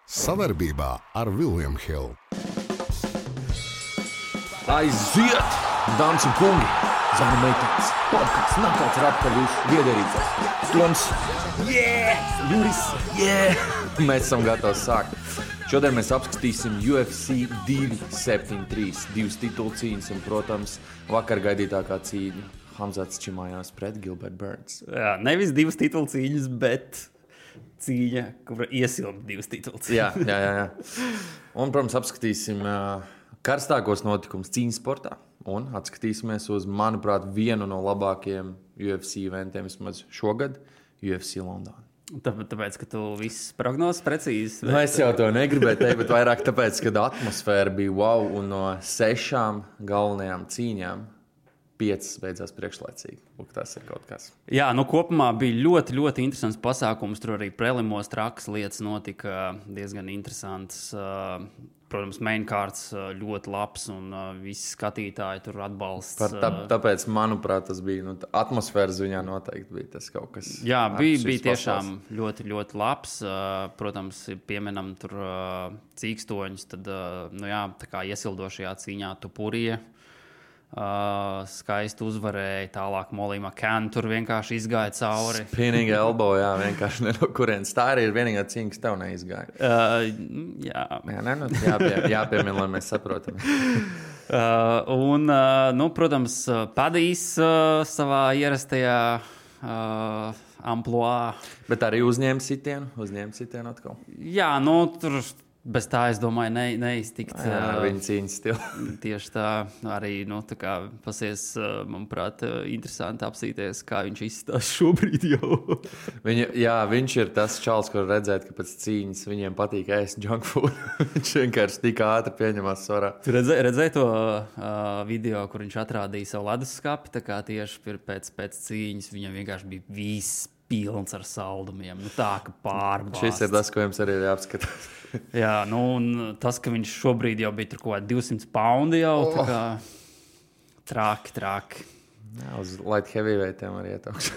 Sadarbībā ar William Hill. Aiziet, dāmas un kungi! Zana meitenes, podcasts Nakauts ir atpakaļ jūsu viedierīcās. Toms, Juris, Mēs esam gatavi sākt. Šodien mēs apskatīsim UFC 273, divas titulu cīņas un, protams, vakar gaidītākā cīņa Hamzats Čimājās pret Gilbert Burns. Jā, nevis divas titulu cīņas, bet cīņa, kura iesilda divas titulu cīņas. Jā. Un, protams, apskatīsim karstākos notikumus cīņas sportā un atskatīsimies uz, manuprāt, vienu no labākajiem UFC eventiem vismaz šogad – UFC London. Tāpēc, ka tu visas prognozes precīzi. Nu, es jau to negribēju teikt, bet vairāk tāpēc, ka atmosfēra bija wow, un no 6 galvenajām cīņām 5 beidzās priekšlaicīgi. Lūk, tas ir kaut kas. Jā, kopumā bija ļoti, ļoti interesants pasākums. Tur arī prelimos trakas lietas notika diezgan interesants. Protams, mainkārts ļoti labs un visi skatītāji tur atbalsts. Tāpēc, manuprāt, tas bija atmosfēras ziņā noteikti bija tas kaut kas. Jā, bija tiešām ļoti, ļoti labs. Protams, pieminam tur cīkstoņus, tad tā kā iesildošajā cīņā Tupurija skaisti uzvarēja, tālāk Molly McCann tur vienkārši izgāja cauri. Spinning elbow, jā, vienkārši ne no kurienes. Tā arī ir vienīgā cīņa, kas tev neizgāja. Jāpiemina, lai mēs saprotam. Protams, Padijs savā ierastajā amploā. Bet arī uzņēma sitienu atkal. Jā, tur bez tā, es domāju, neiztikt. Viņa cīņas stila. Tieši tā, arī, tā kā pasies, manuprāt, interesanti apsīties, kā viņš izstās šobrīd jau. Viņš ir tas čals, kur redzēt, ka pēc cīņas viņiem patīk ēst junk food. Viņš vienkārši tik ātri pieņemās svarā. Tu redzēji to video, kur viņš atrādīja savu leduskapi, tā kā tieši pēc cīņas viņam vienkārši bija viss pilns ar saldumiem. Tā, ka pārbāzt. Šis ir tas, ko jums arī ir jāapskatās. Jā, un tas, ka viņš šobrīd jau bija tur kaut kā 200 poundi jau, tā kā traki. Jā, uz light heavyweightiem arī ietaukšu.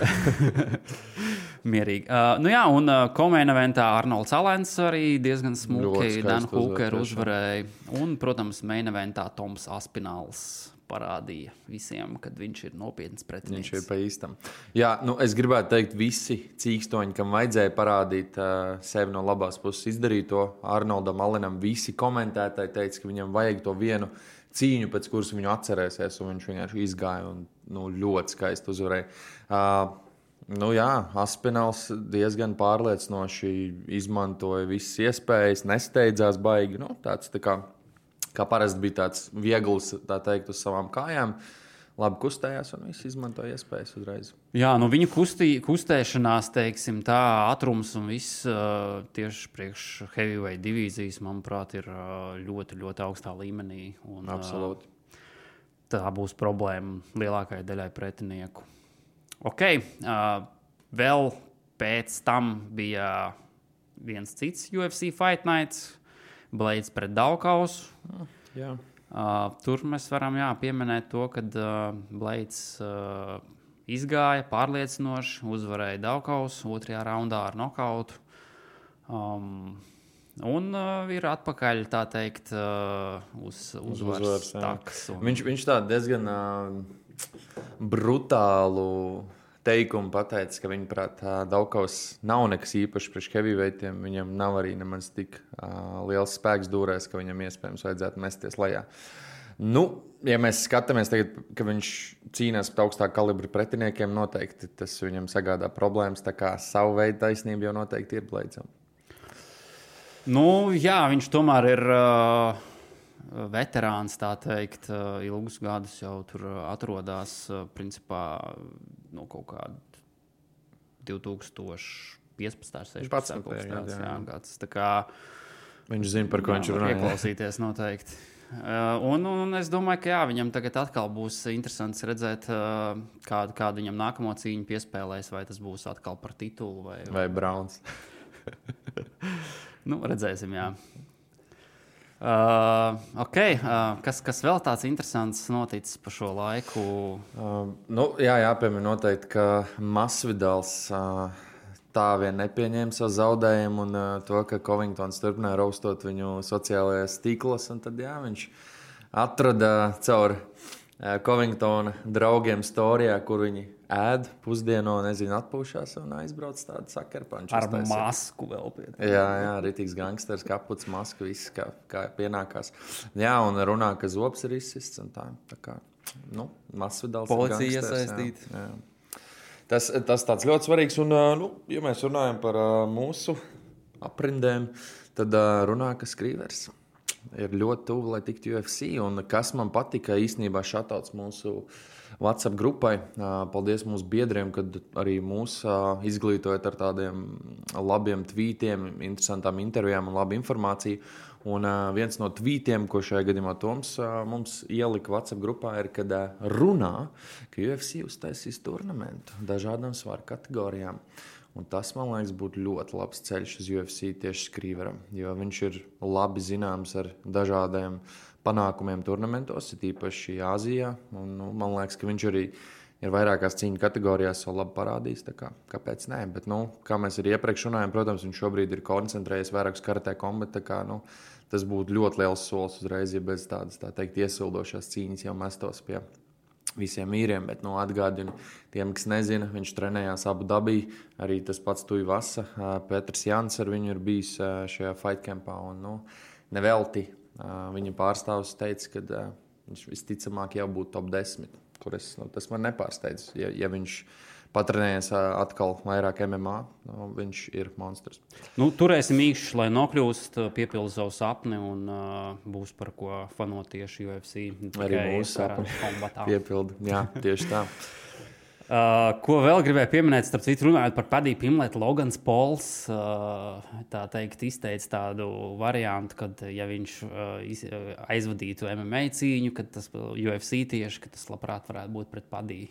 Mierīgi. Un co-main eventā Arnolds Alens arī diezgan smuki Dan Hooker uzvarēja. Un, protams, main eventā Toms Aspināls parādīja visiem, kad viņš ir nopietns pretinieks. Viņš ir pa īstam. Jā, es gribētu teikt, visi cīkstoņi, kam vajadzēja parādīt sevi no labās puses, izdarīja to. Arnoldam Alenam visi komentētāji teica, ka viņam vajag to vienu cīņu, pēc kuras viņu atcerēsies, un viņš vienkārši izgāja un ļoti skaisti uzvarēja. Aspināls diezgan pārliecinoši izmantoja visas iespējas, nesteidzās baigi. Tāds tā kā parasti bija tāds viegls, tā teikt, uz savām kājām. Labi kustējās un viss izmantoja iespējas uzreiz. Jā, viņa kustēšanās, teiksim, tā ātrums un viss tieši priekš heavyweight divīzijas, manuprāt, ir ļoti, ļoti augstā līmenī. Un, absolūti. Tā būs problēma lielākajai daļai pretinieku. Vēl pēc tam bija viens cits UFC Fight Nights. Blades pret Daukausu. Jā. Tur mēs varam pieminēt to, ka Blades izgāja pārliecinoši, uzvarēja Daukausu 2. raundā ar nokautu. Un ir atpakaļ, tā teikt, uz uzvaras takas. Viņš tā diezgan brutālu teikumu pateica, ka viņaprāt Daukaus nav nekas īpašs priekš heavyweightiem. Viņam nav arī nemaz tik liels spēks dūrēs, ka viņam iespējams vajadzētu mesties lejā. Ja mēs skatāmies tagad, ka viņš cīnās pret augstāku kalibru pretiniekiem, noteikti tas viņam sagādā problēmas, tā kā savu veidu taisnība jau noteikti ir Bladesam. Viņš tomēr ir veterāns, tā teikt, ilgus gadus jau tur atrodas, principā, kaut kā 2015. 16. gads. Tā kā viņš zina, par ko viņš runā. Ieklausīties noteikti. Un es domāju, ka viņam tagad atkal būs interesants redzēt, kādu viņam nākamo cīņu piespēlēs, vai tas būs atkal par titulu. Vai Browns. Redzēsim, jā. Kas vēl tāds interesants noticis pa šo laiku? Jāpiemina noteikti, ka Masvidals tā vien nepieņēma savu zaudējumu un to, ka Covingtons turpināja raustot viņu sociālajās tīklos. Un tad jā, viņš atrada caur Covingtona draugiem storijā, kur viņi ēd pusdieno, nezinu, atpūšās un aizbrauc tādu sakarpanču. Ar masku vēl pie tā. Jā, ritīgs gangsters, kaputs, maska, viss kā pienākās. Jā, un runā, ka zobs ir izsists un tā kā, masvidāls. Policija iesaistīta. Tas tāds ļoti svarīgs. Un, ja mēs runājam par mūsu aprindēm, tad runā, ka Skrīvers ir ļoti tuvu, lai tiktu UFC. Un kas man patika īstenībā šatauts mūsu WhatsApp grupai. Paldies mūsu biedriem, kad arī mūs izglītojat ar tādiem labiem tvītiem, interesantām intervijām un labu informāciju. Un viens no tvītiem, ko šajā gadījumā Toms mums ielika WhatsApp grupā, ir, kad runā, ka UFC uztaisīs turnamentu dažādām svaru kategorijām. Un tas, man liekas, būtu ļoti labs ceļš uz UFC tieši Skrīveram, jo viņš ir labi zināms ar dažādiem panākumiem turnamentos, īpaši Āzijā. Un, man liekas, ka viņš arī ir vairākās cīņu kategorijās savu labi parādījis. Kāpēc nē? Bet, kā mēs arī iepriekš runājām, protams, viņš šobrīd ir koncentrējies vairāk uz karatē kombatu. Tas būtu ļoti liels solis uzreiz, ja bez tādas, tā teikt, iesildošās cīņas jau mestos pie visiem īriem, bet atgādinu tiem, kas nezina, viņš trenējās Abu Dabī, arī tas pats Tuivasa, Petrs Jans ar viņu ir bijis šajā fight campā, un nevelti viņa pārstāvs teica, ka viņš visticamāk jau būtu top 10, tas man nepārsteidz, ja viņš patrenējies atkal vairāk MMA, viņš ir monstrs. Turēsim īkšķi, lai nokļūst, piepildu savu sapni un būs par ko fanot tieši UFC. Arī mūsu sapni piepildu, jā, tieši tā. Ko vēl gribēju pieminēt, starp citu runājot par Paddy Pimblett, Logans Pauls, tā teikt, izteica tādu variantu, kad ja viņš aizvadītu MMA cīņu, kad tas UFC tieši, ka tas labprāt varētu būt pret Paddy.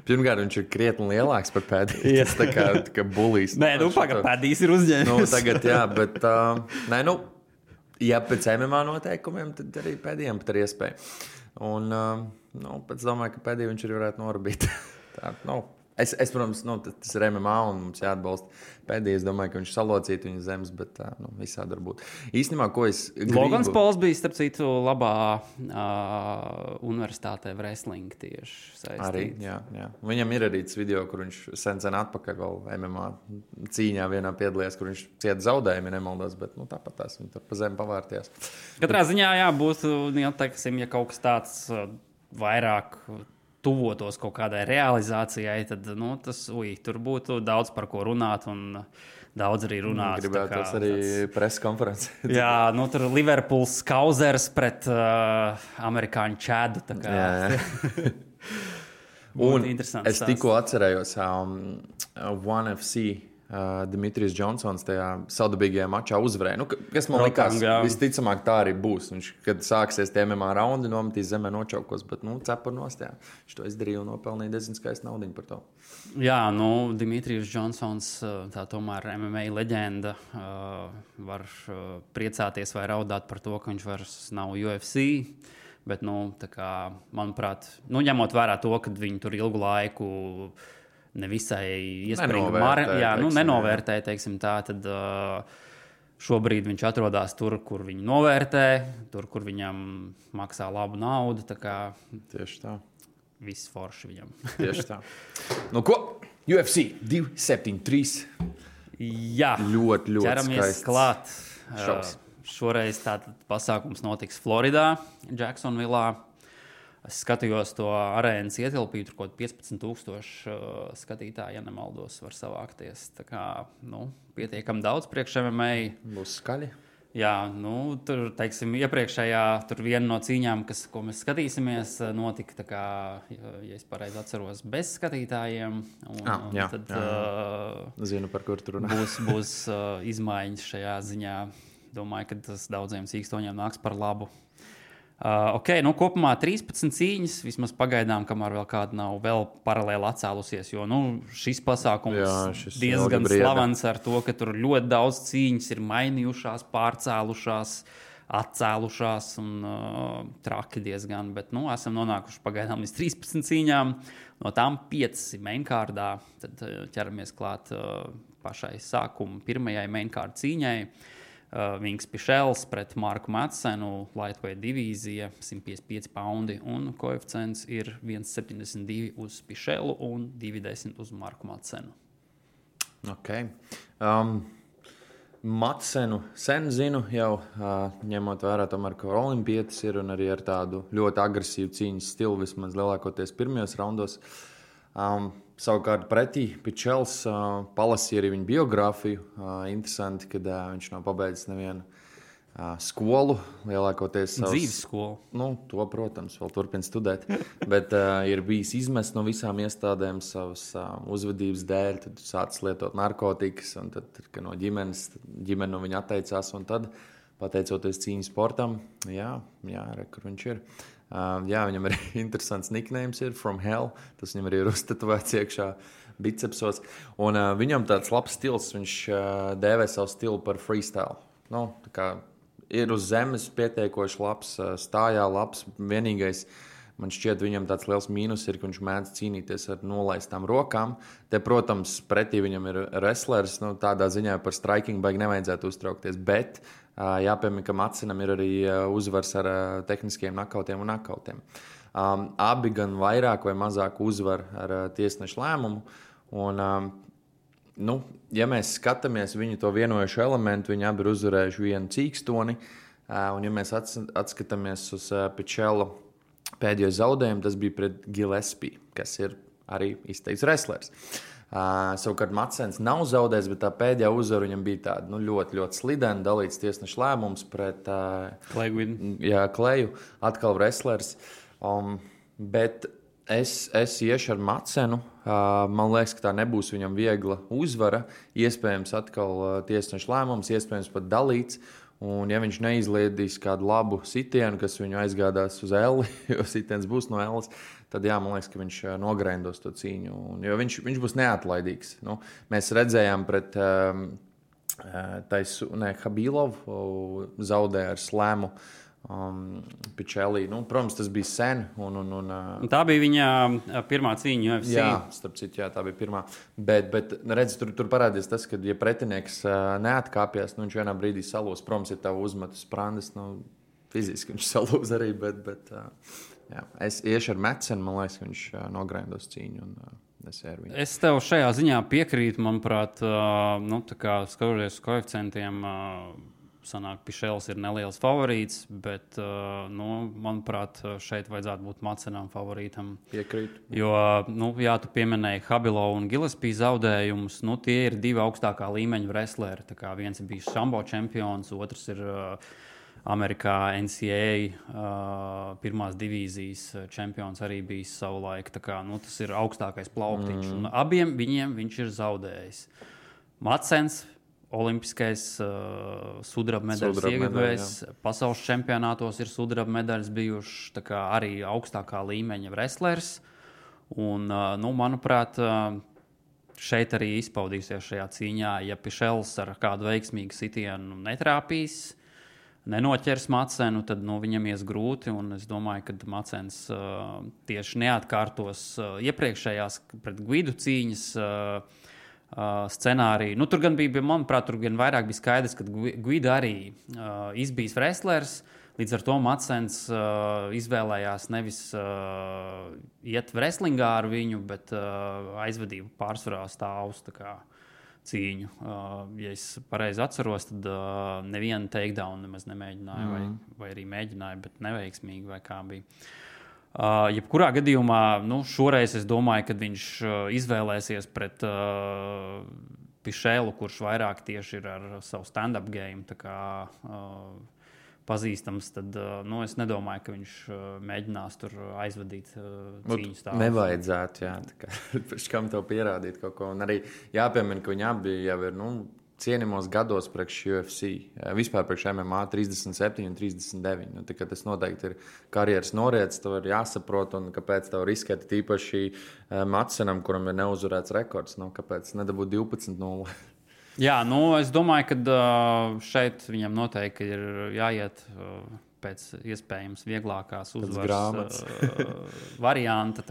Pirmkārt, viņš ir krietni lielāks par Paddy. Tas tā kā bulīs. Nē, pagaid, Paddys ir uzņēmis. Tagad, jā, bet, ja pēc MMA noteikumiem, tad arī Paddyam pat ir iespēja. Un, pēc domāju, ka Paddy viņš arī varētu norbīt. Es, protams, tas ir MMA un mums jāatbalsta Paddy. Es domāju, ka viņš salocītu viņu zemes, bet visādi var būt. Īstenībā, ko es gribu... Logans Pauls bija, starp citu, labā universitātē wrestling tieši saistīts. Arī, jā. Viņam ir arī tas video, kur viņš sen atpakaļ vēl MMA cīņā vienā piedalījās, kur viņš cieta zaudējumi, nemaldos, bet tāpat tās viņi tur pa zemi pavārties. Katrā ziņā, jā, būtu, ja kaut kas tāds vairāk tuvotos kaut kādai realizācijai, tad tur būtu daudz par ko runāt un daudz arī runāt. Gribētu arī preses konferences. Jā, tur Liverpools Kauzers pret amerikāņu Čādu. Jā. Un es tikko atcerējos One FC Dimitrijs Džonsons tajā saudabīgajā mačā uzvarēja. Kas man likās, visticamāk tā arī būs. Viņš, kad sāksies tie MMA raundi, nometīs zemē nočaukos, bet cepur nost, jā. Viņš to izdarīja un nopelnīja diezgan skaistu naudiņu par to. Jā, Dimitrijs Džonsons, tā tomēr MMA leģenda, var priecāties vai raudāt par to, ka viņš vairs nav UFC. Bet, manuprāt, ņemot vērā to, ka viņi tur ilgu laiku nevisai iespējami nenovērtēja, teiksim tā, tad šobrīd viņš atrodas tur, kur viņu novērtē, tur, kur viņam maksā labu naudu. Tieši tā. Viss forši viņam. Tieši tā. Ko? UFC 273. Jā. Ļoti ķeramies klāt. Šoreiz tātad pasākums notiks Floridā, Jacksonvillā. Es skatījos to arēnas ietilpību, tur kaut 15,000 skatītāji, ja nemaldos, var savākties. Tā kā, pietiekami daudz priekš MMA. Būs skaļi. Jā, tur, teiksim, iepriekšējā, tur viena no cīņām, ko mēs skatīsimies, notika, tā kā, ja es pareizi atceros, bez skatītājiem. Tad zinu, par kur tur runā. Būs izmaiņas šajā ziņā. Domāju, ka tas daudziem sīkstoņiem nāks par labu. Kopumā 13 cīņas, vismaz pagaidām, kamēr vēl kāda nav vēl paralēli atcēlusies, jo šis pasākums diezgan slavens ar to, ka tur ļoti daudz cīņas ir mainījušās, pārcēlušās, atcēlušās un traki diezgan, bet esam nonākuši pagaidām līdz 13 cīņām, no tām 5 mainkārdā, tad ķeramies klāt pašai sākuma pirmajai mainkārda cīņai. Vings Pišels pret Marku Madsenu, lightweight divīzija, 155 paundi, un koeficients ir 1,72 uz Pišelu un 2,10 uz Marku Madsenu. Okay. Madsenu sen zinu jau, ņemot vērā tomēr, ka olimpietis ir un arī ar tādu ļoti agresīvu cīņas stilu, vismaz lielākoties pirmajos raundos. Savukārt pretī Pičels palasīja arī viņa biogrāfiju. Interesanti, kad viņš nav pabeidzis nevienu skolu, lielākoties savas... Dzīves skolu. To, protams, vēl turpina studēt, bet ir bijis izmests no visām iestādēm savas uzvedības dēļ, tad sācis lietot narkotikas, un tad, kad no ģimene no viņa atteicās, un tad, pateicoties cīņas sportam, kur viņš ir. Viņam arī interesants nicknames ir From Hell, tas viņam arī ir uztetovēts iekšā bicepsos, un viņam tāds labs stils, viņš dēvē savu stilu par freestyle. Tā kā ir uz zemes pietiekoši labs, stājā labs. Vienīgais, man šķiet, viņam tāds liels mīnus ir, ka viņš mēdz cīnīties ar nolaistām rokām. Te, protams, pretī viņam ir wrestlers, tādā ziņā par striking baigi nevajadzētu uztraukties, bet jāpiemina, ka Madsenam ir arī uzvars ar tehniskiem nakautiem un nakautiem. Abi gan vairāk vai mazāk uzvar ar tiesnešu lēmumu, un ja mēs skatāmies viņu to vienojušo elementu, viņi abi ir uzvarējuši vienu cīkstoni, un ja mēs atskatāmies uz Pičela pēdējo zaudējumu, tas bija pret Gillespie, kas ir arī izteikts wrestlers. Savukārt Madsens nav zaudējis, bet tā pēdējā uzvara viņam bija tāda ļoti, ļoti slidena, dalīts tiesnešu lēmums pret Kleju, atkal wrestlers. Bet es iešu ar Madsenu. Man liekas, ka tā nebūs viņam viegla uzvara. Iespējams, atkal tiesnešu lēmums, iespējams pat dalīts. Un, ja viņš neizliedīs kādu labu sitienu, kas viņu aizgādās uz elli, jo sitiens būs no ellas, tad man liekas, ka viņš nogrendos to cīņu. Jo viņš būs neatlaidīgs. Mēs redzējām pret Habilovu zaudēja ar slēmu. Pičelī. Protams, tas bija sen. Tā bija viņa pirmā cīņa UFC. Jā, starp citu, tā bija pirmā. Bet redz, tur parādījās tas, ka, ja pretinieks neatkāpjas, viņš vienā brīdī salūs. Protams, ir tavu uzmetu sprandas, fiziski viņš salūs arī, bet es iešu ar Madsenu, man liekas, ka viņš nogrendos cīņu. Es tev šajā ziņā piekrītu, manuprāt, tā kā skatoties uz koeficientiem, sanāk, Pišels ir neliels favorīts, bet, manuprāt, šeit vajadzētu būt Madsenam favorītam. Piekrītu. Jo, tu pieminēji Habilovu un Gillespie zaudējumus, tie ir divi augstākā līmeņa wrestleri. Tā kā viens ir bijis sambo čempions, otrs ir Amerikā NCAA pirmās divīzijas čempions arī bijis savulaik. Tā kā, tas ir augstākais plauktiņš. Un abiem viņiem viņš ir zaudējis. Madsens, olimpiskais sudraba medaļas ieguvējs, pasaules čempionātos ir sudraba medaļas bijušas, tā kā arī augstākā līmeņa wrestlers. Un, manuprāt, šeit arī izpaudīsies šajā cīņā, ja Pišels ar kādu veiksmīgu sitienu netrāpīs, nenoķers Madsenu, tad viņam ies grūti, un es domāju, ka Madsens tieši neatkārtos iepriekšējās pret Guidu cīņas scenāriju. Tur gan bija, manuprāt, tur gan vairāk bija skaidrs, ka Guida arī izbijis wrestlers, līdz ar to Madsens izvēlējās nevis iet wrestlingā ar viņu, bet aizvadību pārsvarā stāvus tā kā cīņu. Ja es pareizi atceros, tad nevienu takedown nemaz nemēģināju, vai arī mēģināju, bet neveiksmīgi, vai kā bija. Jebkurā gadījumā, šoreiz es domāju, ka viņš izvēlēsies pret Pišelu, kurš vairāk tieši ir ar savu stand-up game, tā kā pazīstams, tad es nedomāju, ka viņš mēģinās tur aizvadīt cīņu stāvus. Nevajadzētu, tā kā pēc kam tev pierādīt kaut ko. Un arī jāpiemina, ka viņi abi jau ir, cienījumos gados priekš UFC, vispār priekš MMA 37 un 39. Tas noteikti ir karjeras noriets, tev ir jāsaprot, un kāpēc tev riskēt īpaši Madsenam, kuram ir neuzvarēts rekords, kāpēc nedabūt 12-0. Jā, es domāju, ka šeit viņam noteikti ir jāiet pēc iespējams vieglākās uzvaras varianta,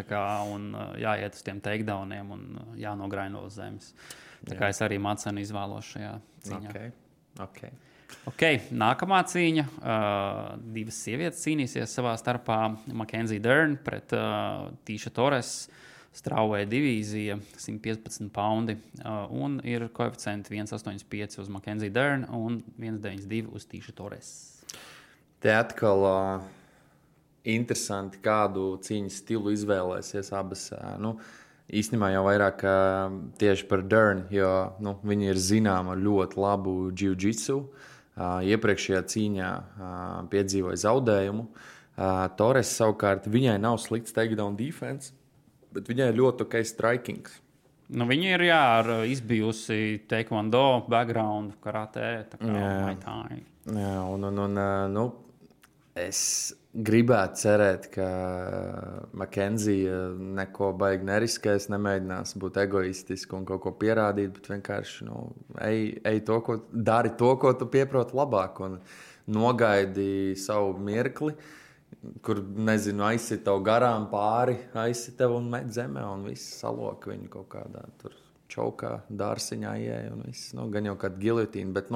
un jāiet uz tiem takedowniem un jānograino uz zemes. Tā kā es arī Madsenu izvēlos šajā cīņā. Okay, nākamā cīņa. Divas sievietes cīnīsies savā starpā. Mackenzie Dern pret Tīša Torres. Strawweight divīzija, 115 poundi, un ir koeficienti 1,85 uz Mackenzie Dern un 1,92 uz Tīša Torres. Te atkal interesanti, kādu cīņas stilu izvēlēsies abas. Īstenībā jau vairāk tieši par Dern, jo viņi ir zināma ar ļoti labu jiu-jitsu. Iepriekšējā cīņā piedzīvoja zaudējumu. Torres savukārt, viņai nav slikts takedown defense, bet viņai ir ļoti ok striking. Viņa ir izbijusi taekwondo background, karate, tā kā Muay Thai. Jā, es gribētu cerēt, ka Mackenzie neko baigi neriskēs, nemēģinās būt egoistiski un kaut ko pierādīt, bet vienkārši ej to, dari to, ko tu pieproti labāk, un nogaidi savu mirkli, kur, nezinu, aizsit tev garām pāri, aizsit tev un met zemē, un viss saloka viņu kaut kādā tur čaukā, dārsiņā ieeja, un viss, gan jau kāda gilotīna, bet,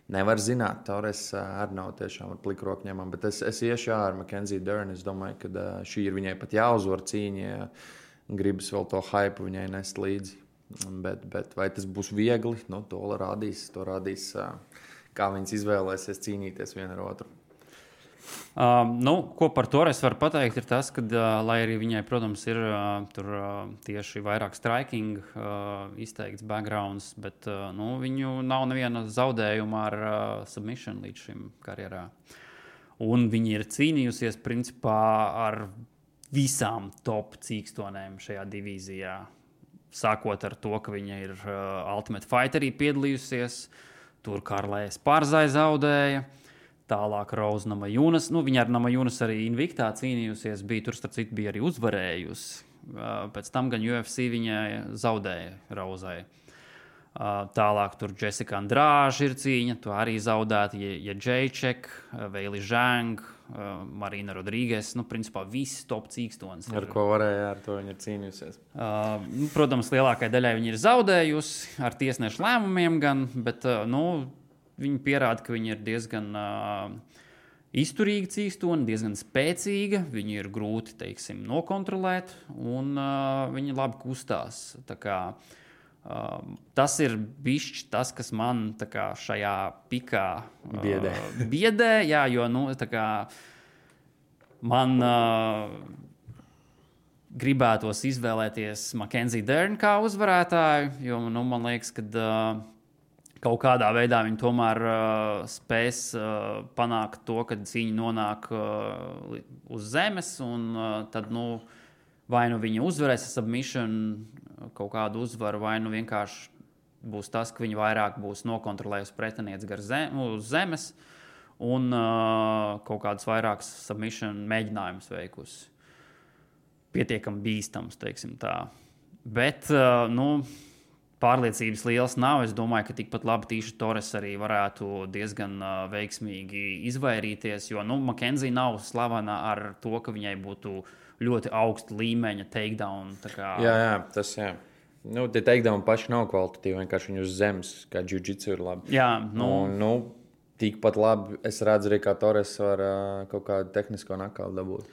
nevar zināt, Torres arī nav tiešām ar plikroku ņemam, bet es iešu ar Mackenzie Dern, es domāju, ka šī ir viņai pat jāuzvar cīņa, ja gribas vēl to hype viņai nest līdzi, bet vai tas būs viegli, to rādīs, kā viņas izvēlēsies cīnīties viena ar otru. Ko par Torres var pateikt, ir tas, ka, lai arī viņai, protams, ir tur tieši vairāk striking izteikts backgrounds, bet viņu nav neviena zaudējuma ar submission līdz šim karjerā. Un viņi ir cīnījusies principā ar visām top cīkstonēm šajā divīzijā. Sākot ar to, ka viņa ir Ultimate Fighterī piedalījusies, tur Karlējas Pārzai zaudēja. Tālāk Rose Namajunas. Viņa ar Namajunas arī Invictā cīnījusies. Tur, starp citu, bija arī uzvarējusi. Pēc tam gan UFC viņai zaudēja Rozai. Tālāk tur Jessica Andrade ir cīņa. Tu arī zaudēti Jacek, Veili Zhang, Marina Rodrīgas. Principā visi top cīkstonis. Ar ko varēja, ar to viņa ir cīnījusies. Protams, lielākai daļai viņa ir zaudējusi ar tiesnešu lēmumiem gan, bet, viņi pierāda, ka viņi ir diezgan izturīgi cīkstoni, diezgan spēcīga. Viņi ir grūti, teiksim, nokontrolēt, un viņi labi kustās. Tā kā, tas ir bišķi tas, kas man tā kā šajā pikā biedē. Jā, jo tā kā man gribētos izvēlēties Mackenzie Dern kā uzvarētāju, jo man liekas, ka kaut kādā veidā viņi tomēr spēs panākt to, ka cīņa nonāk uz zemes, un tad, vai viņi uzvarēs submission kaut kādu uzvaru, vai vienkārši būs tas, ka viņi vairāk būs nokontrolējusi pretinieci uz zemes, un kaut kādus vairākus submission mēģinājumus veikusi. Pietiekami bīstams, teiksim tā. Bet, pārliecības liels nav. Es domāju, ka tikpat labi Tīša Torres arī varētu diezgan veiksmīgi izvairīties, jo Mackenzie nav slavena ar to, ka viņai būtu ļoti augsta līmeņa takedown. Jā, tas jā. Tie takedown paši nav kvalitatīvi, vienkārši viņi uz zemes, kā jiu-jitsu ir labi. Jā, tikpat labi es redzu arī, kā Torres var kaut kādu tehnisko nakautu dabūt.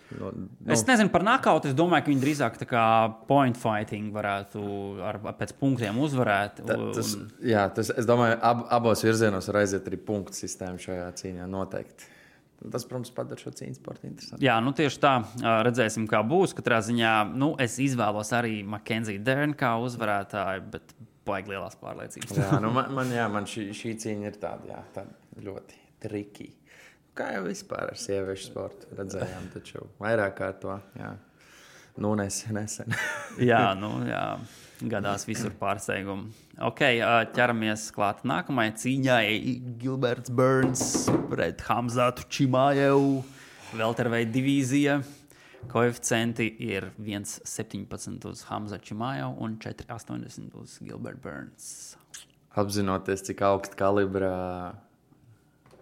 Es nezinu par nakautu, es domāju, ka viņi drīzāk tā kā point fighting varētu pēc punktiem uzvarēt. Es domāju, abos virzienos var aiziet arī punktu sistēmu šajā cīņā noteikti. Tas, protams, padara šo cīņu sportu interesantu. Jā, tieši tā. Redzēsim, kā būs. Katrā ziņā es izvēlos arī Mackenzie Dern kā uzvarētāju, bet baigi lielās pārliecības. Man šī cīņa ir tāda ļoti triki. Kā jau vispār ar sieviešu sportu redzējām, taču vairāk kā to. Nesen. jā. Gadās visur pārsteigumi. Ķeramies klāt nākamajai cīņai. Gilberts Burns pret Hamzatu Chimaevu. Welterweight divīzija. Koeficienti ir 1,17 uz Hamzatu Chimaevu un 4,80 uz Gilbert Burns. apzinoties, cik augsta kalibra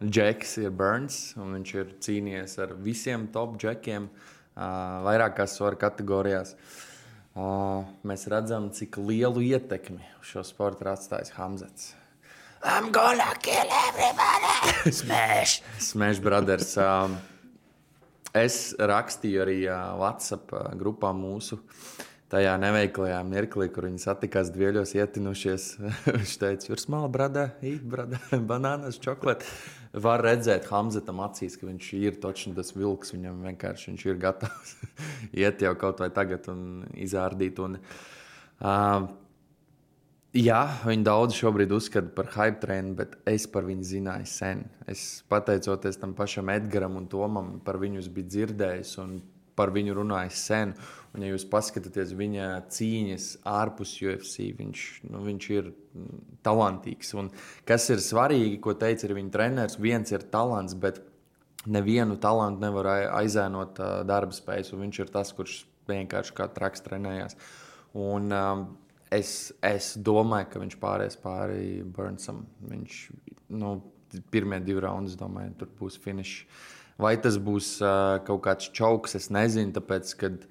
džeks ir Burns, un viņš ir cīnījies ar visiem top džekiem vairākās svaru kategorijās. Mēs redzam, cik lielu ietekmi uz šo sportu ir atstājis Hamzats. I'm gonna kill everybody! Smash Brothers. Es rakstīju arī WhatsApp grupā mūsu tajā neveiklajā mirklī, kur viņi satikās dvieļos ietinušies. Viņš teica, you're small, brother, eat, brother, bananas, chocolate. Var redzēt Hamzatam acīs, ka viņš ir točni tas vilks, viņam vienkārši viņš ir gatavs iet jau kaut vai tagad un izārdīt. Un, jā, viņi daudz šobrīd uzskata par hype trainu, bet es par viņu zināju sen. Es pateicoties tam pašam Edgaram un Tomam, par viņu biju dzirdējis un par viņu runājis sen. Un, ja jūs paskatāties viņa cīņas ārpus UFC, viņš ir talantīgs. Un kas ir svarīgi, ko teica arī viņa treneris, viens ir talants, bet nevienu talantu nevar aizēnot darba spējas. Un viņš ir tas, kurš vienkārši kā traks trenējās. Un es domāju, ka viņš pāries pāri Burnsam. Viņš, pirmie 2 raundus, domāju, tur būs finišs. Vai tas būs kaut kāds čauks, es nezinu, tāpēc, kad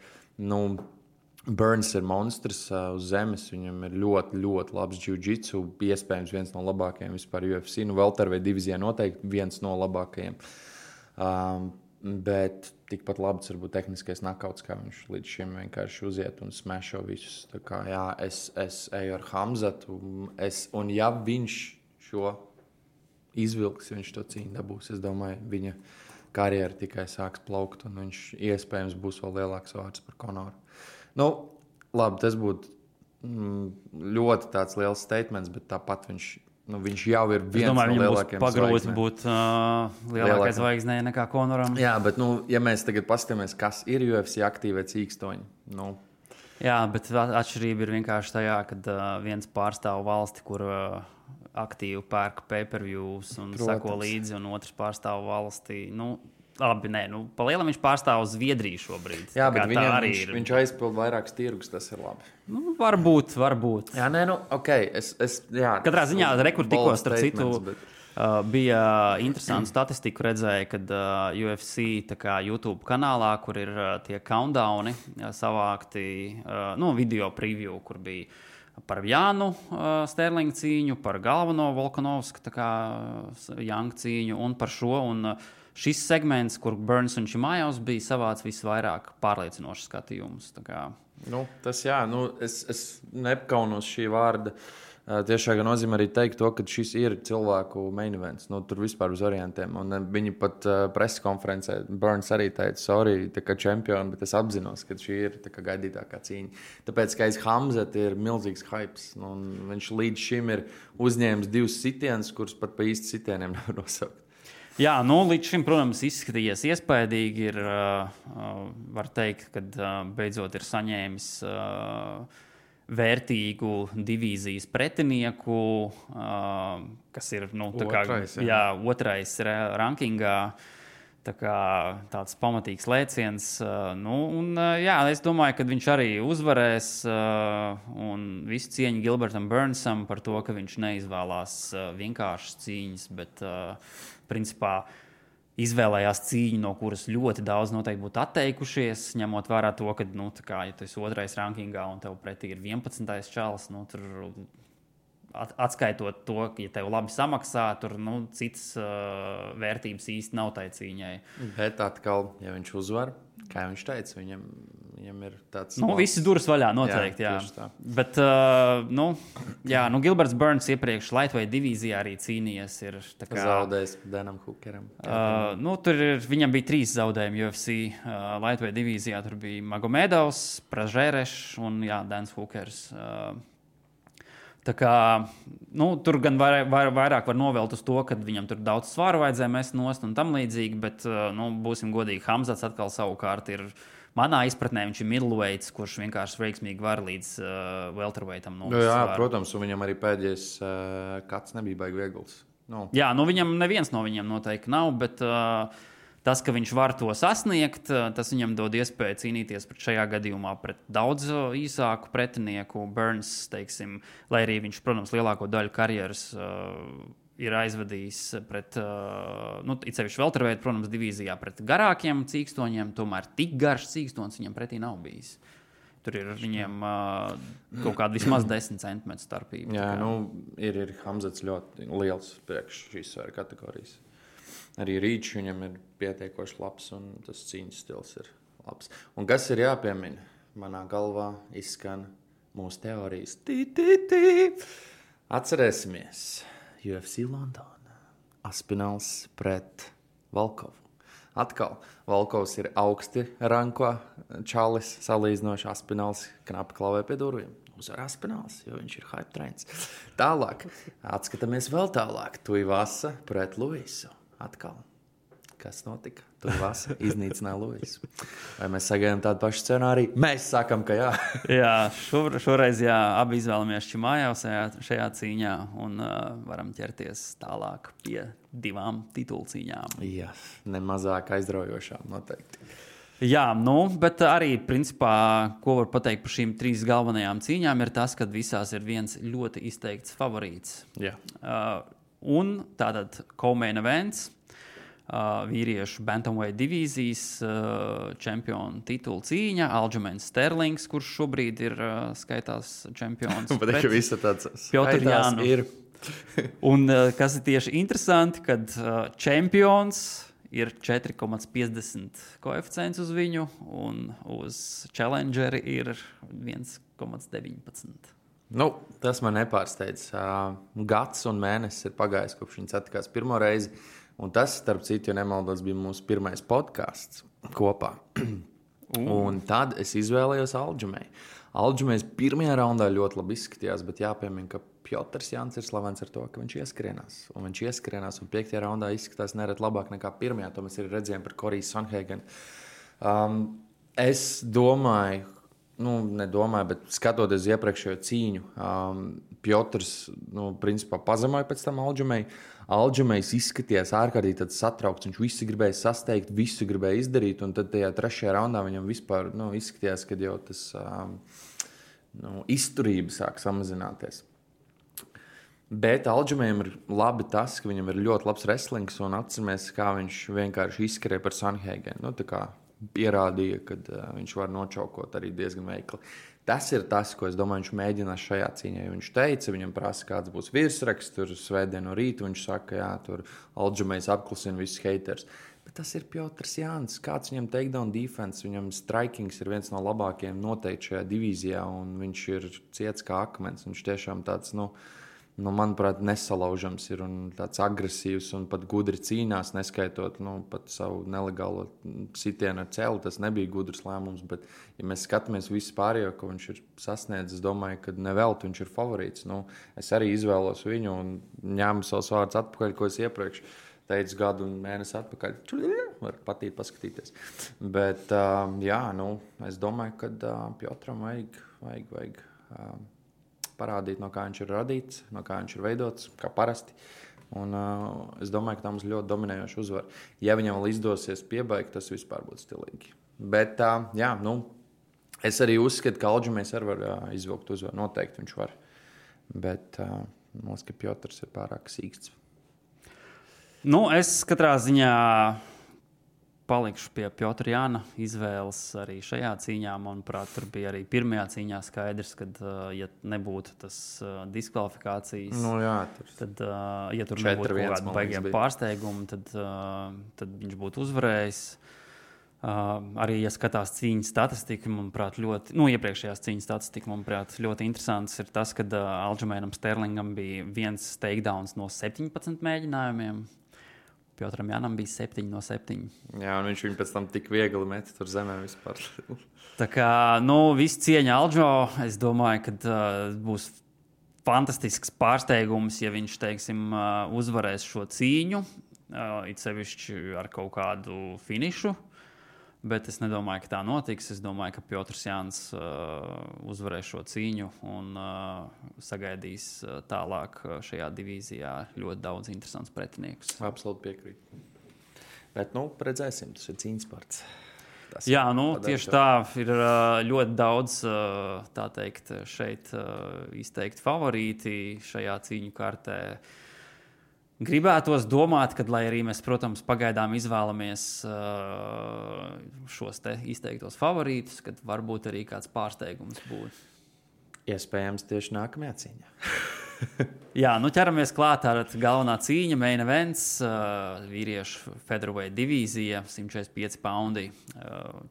Burns ir monstrs uz zemes, viņam ir ļoti, ļoti labs jiu-jitsu, iespējams viens no labākajiem vispār UFC, welterweight divīzijā noteikti viens no labākajiem. Bet tikpat labs varbūt tehniskais nakauts, kā viņš līdz šim vienkārši uziet un smešo visus. Tā kā, jā, es eju ar Hamzatu, un ja viņš šo izvilks, viņš to cīņu dabūs, es domāju, viņa karjera tikai sāks plaukt, un viņš iespējams būs vēl lielāks vārds par Konoru. Labi, tas būtu ļoti tāds liels statements, bet tāpat viņš jau ir viens no lielākajiem pagrūti būt lielākai zvaigznei nekā Konoram. Jā, bet, ja mēs tagad paskatāmies, kas ir UFC aktīvie cīkstoņi, Jā, bet atšķirība ir vienkārši tajā, kad viens pārstāv valsti, kur aktīvi pērk pay-per-views un sako līdzi, un otrs pārstāv valsti. Labi, pa lielam viņš pārstāv Zviedriju šobrīd. Jā, bet viņš aizpild vairākus tirgus, tas ir labi. Varbūt. Jā, okay. Katrā ziņā tikko starp citu bija interesanti statistiku redzēja, kad UFC YouTube kanālā, kur ir tie countdowni savākti, video preview, kur bija par Jānu Sterlingu cīņu, par galveno Volkanovsku Jangu cīņu un par šo. Un šis segments, kur Burns un Čimājovs bija savāds visvairāk pārliecinošs skatījumus. Tas jā, es nepkaunos šī vārda. Tiešā nozīmē arī teikt to, ka šis ir cilvēku main events. Tur vispār uz orientiem. Un viņi pat preskonferencē, Burns arī teica, sorry, kā čempioni, bet es apzinos, ka šī ir gaidītākā cīņa. Tāpēc, ka aiz Hamzat ir milzīgs hypes. Un viņš līdz šim ir uzņēmis 2 sitienus, kurus pat pa īsti sitieniem nevar nosaukt. Jā, līdz šim, protams, izskatījies iespaidīgi. Var teikt, ka beidzot ir saņēmis vērtīgu divīzijas pretinieku, kas ir otrais rankingā. Tāds pamatīgs lēciens. Es domāju, ka viņš arī uzvarēs. Un visu cieņu Gilbertam Burnsam par to, ka viņš neizvēlās vienkāršas cīņas, bet principā izvēlējās cīņu, no kuras ļoti daudz noteikti būtu atteikušies, ņemot vērā to, ka, ja tu esi otrais rankingā un tev pretī ir 11. čalis, tur atskaitot to, ka, ja tev labi samaksā, tur citas vērtības īsti nav tai cīņai. Bet atkal, ja viņš uzvar, kā viņš teica, viņam ir tāds... Visi durvis vaļā noteikti, jā. Bet, Gilberts Burns iepriekš lightweight divīzijā arī cīnījies. Zaudējis Danam Hookeram. Viņam bija 3 zaudējumi UFC lightweight divīzijā. Tur bija Magomedovs, Pražērešs un Dans Hookers. Tur gan vairāk var novelt uz to, ka viņam tur daudz svāru vajadzēja mest nost un tam līdzīgi, bet, būsim godīgi, Hamzats atkal savukārt ir, manā izpratnē, viņš ir middleweights, kurš vienkārši veiksmīgi var līdz welterweightam novest svāru. Jā, protams, un viņam arī pēdējais kāds nebija baigi viegls. Jā, viņam neviens no viņiem noteikti nav, bet Tas, ka viņš var to sasniegt, tas viņam dod iespēju cīnīties šajā gadījumā pret daudz īsāku pretinieku. Burns, teiksim, lai arī viņš, protams, lielāko daļu karjeras ir aizvadījis pret, it sevišķi welterweight, protams, divīzijā pret garākiem cīkstoņiem, tomēr tik garš cīkstons viņam pretī nav bijis. Tur ir viņiem kaut kāda vismaz 10 centimetru starpība. Jā, ir Hamzats ļoti liels priekš šīs svaru kategorijas. Arī Rīčs viņam ir pietiekoši labs, un tas cīņas stils ir labs. Un kas ir jāpiemina? Manā galvā izskan mūsu teorijas. Atcerēsimies UFC London. Aspinalls pret Volkovu. Atkal, Volkovs ir augsti ranko čalis, salīdzinoši Aspinalls knapi klavē pie durvīm. Uzvar Aspinalls, jo viņš ir hype trains. Tālāk, atskatāmies vēl tālāk. Tuivasa pret Luisu. Atkal, kas notika? Tuivasa iznīcināja Luisu. Vai mēs sagaidām tādu pašu scenāriju? Mēs sakam, ka jā. Jā, šoreiz abi izvēlamies Čimājevs šajā cīņā un varam ķerties tālāk pie 2 titulu cīņām. Jā, nemazāk aizraujošām noteikti. Jā, bet arī, principā, ko var pateikt par šīm 3 galvenajām cīņām, ir tas, ka visās ir viens ļoti izteikts favorīts. Jā. Un tātad co-main events, vīriešu bantamweight divīzijas čempionu titulu cīņa, Aljamains Sterlings, kurš šobrīd ir skaitās čempions. Bet visi tāds Piotr Jānu. Ir. Un kas ir tieši interesanti, kad čempions ir 4,50 koeficients uz viņu, un uz challengeri ir 1,19. Tas man nepārsteidz. Gads un mēnesis ir pagājis, kopš viņi satikās pirmo reizi. Un tas, starp citu, ja nemaldos, bija mūsu pirmais podcasts kopā. Un tad es izvēlējos Aljamai. Aljamais pirmajā raundā ļoti labi izskatījās, bet jāpiemina, ka Piotrs Jānis ir slavens ar to, ka viņš ieskrienās. Un viņš ieskrienās, un 5. raundā izskatās nereti labāk nekā pirmajā. To mēs arī redzējām par Koriju Sanhēgenu. Es domāju, bet skatoties uz iepriekšējo cīņu, Piotrs, principā pazemoja pēc tam Aljamai. Aljamais izskatījās ārkārtīgi satraukts. Viņš visu gribēja sasteigt, visu gribēja izdarīt, un tad tajā 3. raundā viņam vispār izskatījās, ka jau tas izturība sāk samazināties. Bet Aljamaim ir labi tas, ka viņam ir ļoti labs wrestlings, un atceramies, kā viņš vienkārši izskrēja par Sanhēgenu. Pierādīja, ka viņš var nočaukot arī diezgan veikli. Tas ir tas, ko es domāju, viņš mēģinās šajā cīņā. Viņš teica, viņam prasa, kāds būs virsraksts, tur svētdien no rīta. Viņš saka, jā, tur Aljamais apklusina visus haters. Bet tas ir Piotrs Jānis. Kāds viņam takedown defense, viņam strikings ir viens no labākajiem noteikti šajā divīzijā, un viņš ir ciets kā akmens. Viņš tiešām tāds, manuprāt, nesalaužams ir un tāds agresīvs un pat gudri cīnās, neskaitot pat savu nelegālo sitienu ar celi. Tas nebija gudrs lēmums, bet, ja mēs skatāmies visu pārējo, ko viņš ir sasniedzis, es domāju, ka nevelti viņš ir favorīts. Es arī izvēlos viņu un ņēmu savus vārdus atpakaļ, ko es iepriekš teicu gadu un mēnesi atpakaļ. Var patīt paskatīties. Bet, es domāju, ka Piotram vajag parādīt, no kā viņš ir radīts, no kā viņš ir veidots, kā parasti. Un es domāju, ka tā mums ļoti dominējoša uzvara. Ja viņam vēl izdosies piebaigt, tas vispār būtu stilīgi. Bet, es arī uzskatu, ka Aljamais arī var izvilkt uzvaru. Noteikti viņš var. Bet, mums, ka Piotrs ir pārāk sīksts. Es katrā ziņā palikšu pie Piotra Jāna izvēles arī šajā cīņā. Manuprāt, tur bija arī pirmajā cīņā skaidrs, ka, ja nebūtu tas diskvalifikācijas, tad, ja tur nebūtu kaut kāda baigiem pārsteiguma, tad viņš būtu uzvarējis. Arī, ja skatās cīņas statistiku, manuprāt, iepriekšējās cīņas statistika, manuprāt, ļoti interesants ir tas, ka Aljamainam Sterlingam bija 1 takedowns no 17 mēģinājumiem. Piotram Jānam bija 7 no 7. Jā, un viņš viņu pēc tam tik viegli met tur zemē vispār. Tā kā, viss cieņa Aljo, es domāju, ka būs fantastisks pārsteigums, ja viņš, teiksim, uzvarēs šo cīņu, it sevišķi ar kaut kādu finišu. Bet es nedomāju, ka tā notiks. Es domāju, ka Piotrs Jānis uzvarēs šo cīņu un sagaidīs tālāk šajā divīzijā ļoti daudz interesants pretiniekus. Absolūti piekrītu. Bet, redzēsim, tas ir cīņas sports. Jā, tieši tā ir ļoti daudz, tā teikt, šeit izteikti favorīti šajā cīņu kartē. Gribētos domāt, ka, lai arī mēs, protams, pagaidām izvēlamies šos te izteiktos favorītus, kad varbūt arī kāds pārsteigums būs. Iespējams, tieši nākamajā cīņā. Jā, ķeramies klāt ar galvenā cīņa, main events, vīriešu featherweight divīzija, 145 poundi,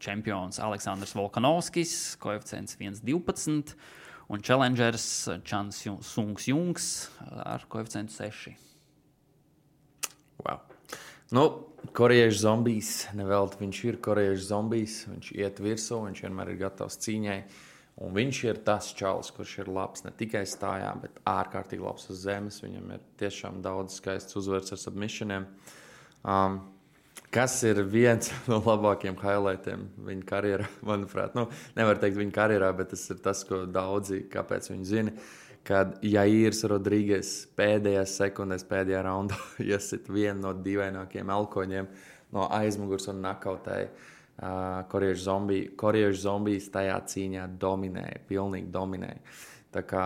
čempions Aleksandrs Volkanovskis, koeficients 1,12 un challengers Chan Sung Jungs ar koeficientu 6. Wow. Korejiešu zombijs, nevelti viņš ir korejiešu zombijs, viņš iet virsū, viņš vienmēr ir gatavs cīņai. Un viņš ir tas čalis, kurš ir labs ne tikai stājā, bet ārkārtīgi labs uz zemes. Viņam ir tiešām daudz skaists uzvaras ar submissioniem. Kas ir viens no labākajiem highlightiem viņa karjerā, manuprāt. Nevar teikt viņa karjerā, bet tas ir tas, ko daudzi, kāpēc viņi zina. Kad Jairs Rodrīgas pēdējās sekundēs, pēdējā raundā iesit vienu no dīvainākajiem elkoņiem no aizmugurs un nakautēja. Korejiešu zombijs tajā cīņā dominēja, pilnīgi dominēja. Tā kā,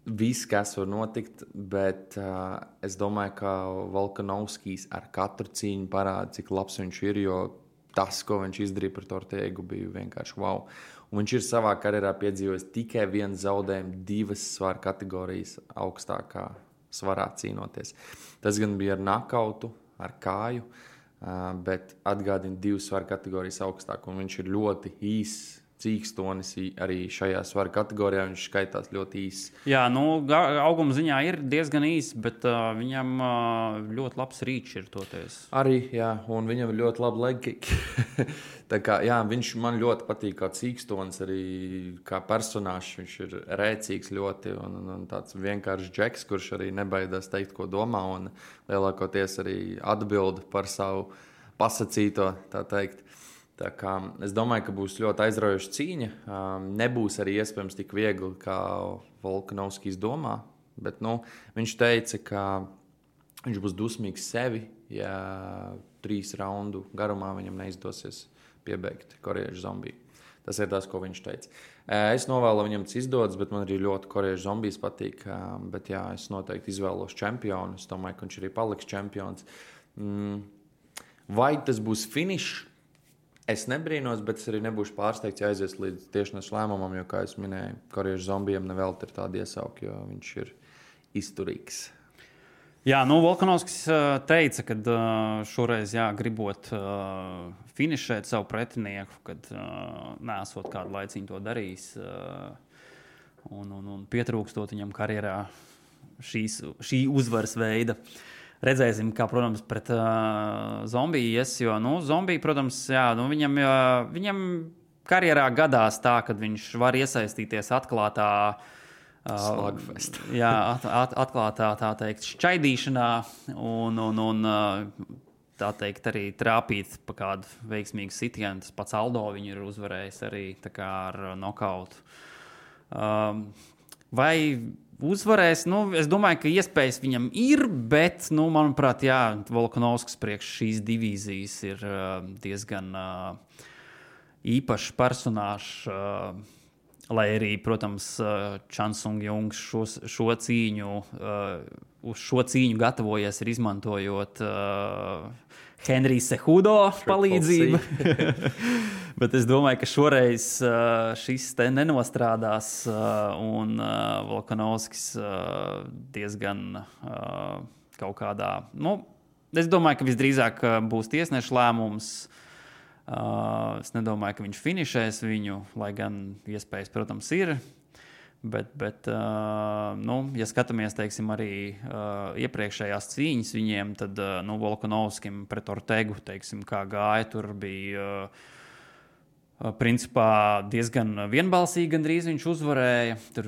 viss, kas var notikt, bet es domāju, ka Volkanovskis ar katru cīņu parāda, cik labs viņš ir, jo tas, ko viņš izdarīja par Ortegu, bija vienkārši wow. Un viņš ir savā karjerā piedzīvojis tikai vienu zaudējumu, 2 svaru kategorijas augstākā svarā cīnoties. Tas gan bija ar nakautu, ar kāju, bet atgādina 2 svaru kategorijas augstāk, un viņš ir ļoti īss cīkstonis arī šajā svaru kategorijā, viņš skaitās ļoti īss. Jā, auguma ziņā ir diezgan īss, bet viņam ļoti labs rīčs ir toties. Arī, jā, un viņam ir ļoti labi leg kick. Tā kā, jā, viņš man ļoti patīk kā cīkstonis, arī kā personāžs, viņš ir rēcīgs ļoti, un tāds vienkāršs džeks, kurš arī nebaidās teikt, ko domā, un lielākoties arī atbild par savu pasacīto, tā teikt. Tā kā, es domāju, ka būs ļoti aizraujoša cīņa. Nebūs arī iespējams tik viegli, kā Volkanovskis domā. Bet viņš teica, ka viņš būs dusmīgs sevi, ja 3 raundu garumā viņam neizdosies piebeigt korejiešu zombiju. Tas ir tas, ko viņš teica. Es novēlu viņam tas izdodas, bet man arī ļoti korejiešu zombijs patīk. Bet jā, es noteikti izvēlos čempionu. Es domāju, ka viņš arī paliks čempions. Vai tas būs finišs? Es nebrīnos, bet es arī nebūšu pārsteigts, ja aizies līdz tiešnes lēmumam, jo, kā es minēju, korejiešu zombijam nevelti ir tāda iesauka, jo viņš ir izturīgs. Jā, Volkanovskis teica, ka šoreiz gribot finišēt savu pretinieku, kad neesot kādu laiciņu to darījis un pietrūkstot viņam karjerā šī uzvaras veida. Redzēsim, kā, protams, pret zombiju ies, jo, zombiju, protams, viņam karjerā gadās tā, kad viņš var iesaistīties atklātā slagfest. Atklātā, tā teikt, šķaidīšanā un tā teikt, arī trāpīt pa kādu veiksmīgu sitienu. Tas pats Aldo viņu ir uzvarējis arī tā kā ar nokautu. Vai uzvarēs? Es domāju, ka iespējas viņam ir, bet, manuprāt, Volkanovskis priekš šīs divīzijas ir diezgan īpašs personāžs, lai arī, protams, Chan Sung Jungs šo cīņu, uz šo cīņu gatavojies ir izmantojot Henrija Cejudo palīdzību. Bet es domāju, ka šoreiz šis te nenostrādās un Volkanovskis diezgan kaut kādā... es domāju, ka visdrīzāk būs tiesneša lēmums. Es nedomāju, ka viņš finišēs viņu, lai gan iespējas, protams, ir. Bet ja skatāmies, teiksim, arī iepriekšējās cīņas viņiem, tad Volkanovskim pret Ortegu, teiksim, kā gāja, tur bija principā diezgan vienbalsīgi gandrīz viņš uzvarēja. Tur,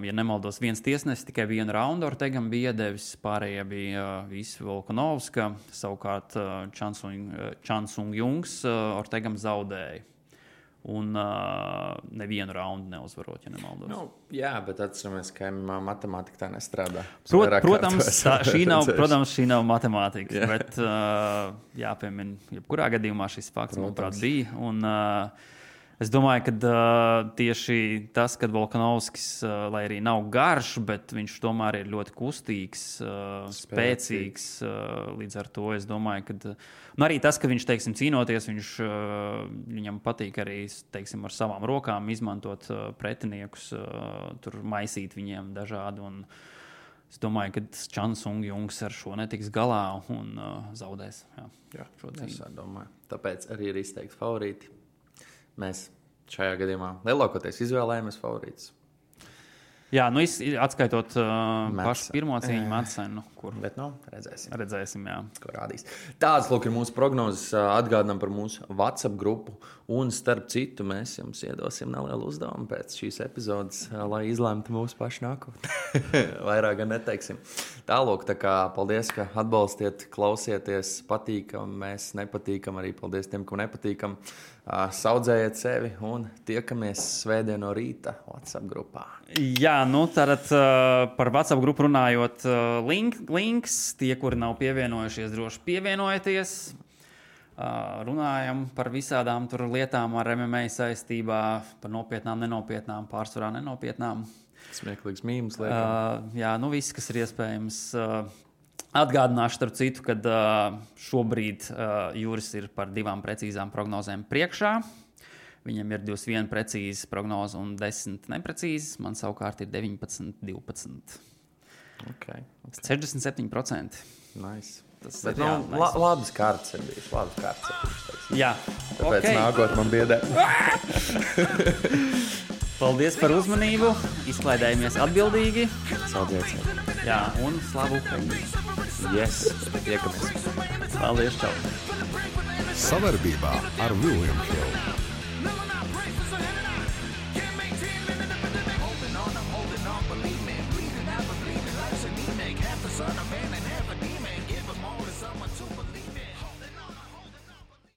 ja nemaldos, viens tiesnesis tikai 1 raundu Ortegam bija iedevis, pārējie bija visi Volkanovska, savukārt Chan Sung Jungs Ortegam zaudēja. Un nevienu raundu neuzvarot, ja nemaldos. Nu, jā, bet atceramies, ka matemātika tā nestrādā. Protams, šī nav matemātika, bet jāpiemina, jebkurā gadījumā šis fakts, manuprāt, bija. Un es domāju, ka tieši tas, kad Volkanovskis, lai arī nav garš, bet viņš tomēr ir ļoti kustīgs, spēcīgs. Līdz ar to es domāju, ka arī tas, ka viņš, teiksim, cīnoties, viņam patīk arī, teiksim, ar savām rokām izmantot pretiniekus, tur maisīt viņiem dažādi. Un es domāju, ka Chan Sung Jungs ar šo netiks galā un zaudēs. Jā, es domāju. Tāpēc arī ir izteikti favorīti. Mēs šajā gadījumā lielākoties izvēlējāmies favorītus. Jā, nu atskaitot pašu pirmo cīņu Madsenu, kur redzēsim, jā. Ko rādīs. Tādas, lūk, ir mūsu prognozes. Atgādinām par mūsu WhatsApp grupu. Un starp citu, mēs jums iedosim nelielu uzdevumu pēc šīs epizodes, lai izlemtu mūsu pašu nākotni. Vairāk gan neteiksim. Tālūk, tā kā paldies, ka atbalstiet, klausieties, patīkam, mēs nepatīkam, arī paldies tiem, kam nepatīkam. Saudzējiet sevi un tiekamies svētdien no rīta WhatsApp grupā. Jā, nu tātad par WhatsApp grupu runājot, links, tie, kuri nav pievienojušies, droši pievienojieties. Runājam par visādām tur lietām ar MMA saistībā, par nopietnām, nenopietnām, pārsvarā nenopietnām. Smieklīgs mīmums liekam. Jā, nu viss, kas ir iespējams. Atgādināšu starp citu, ka šobrīd Juris ir par 2 precīzām prognozēm priekšā. Viņam ir 21 precīzas prognozes un 10 neprecīzas. Man savukārt ir 19, 12. Okay. 67%. Nice. Tas bet ir nice. Labas kārtas ir bijis. Jā. Tāpēc nākot man biedē. Paldies par uzmanību. Izklaidējamies atbildīgi. Saudziet. Jā, un slavu Ukraiņai. Yes, tiekamies. Paldies, čau. Savarbībā ar William Hill.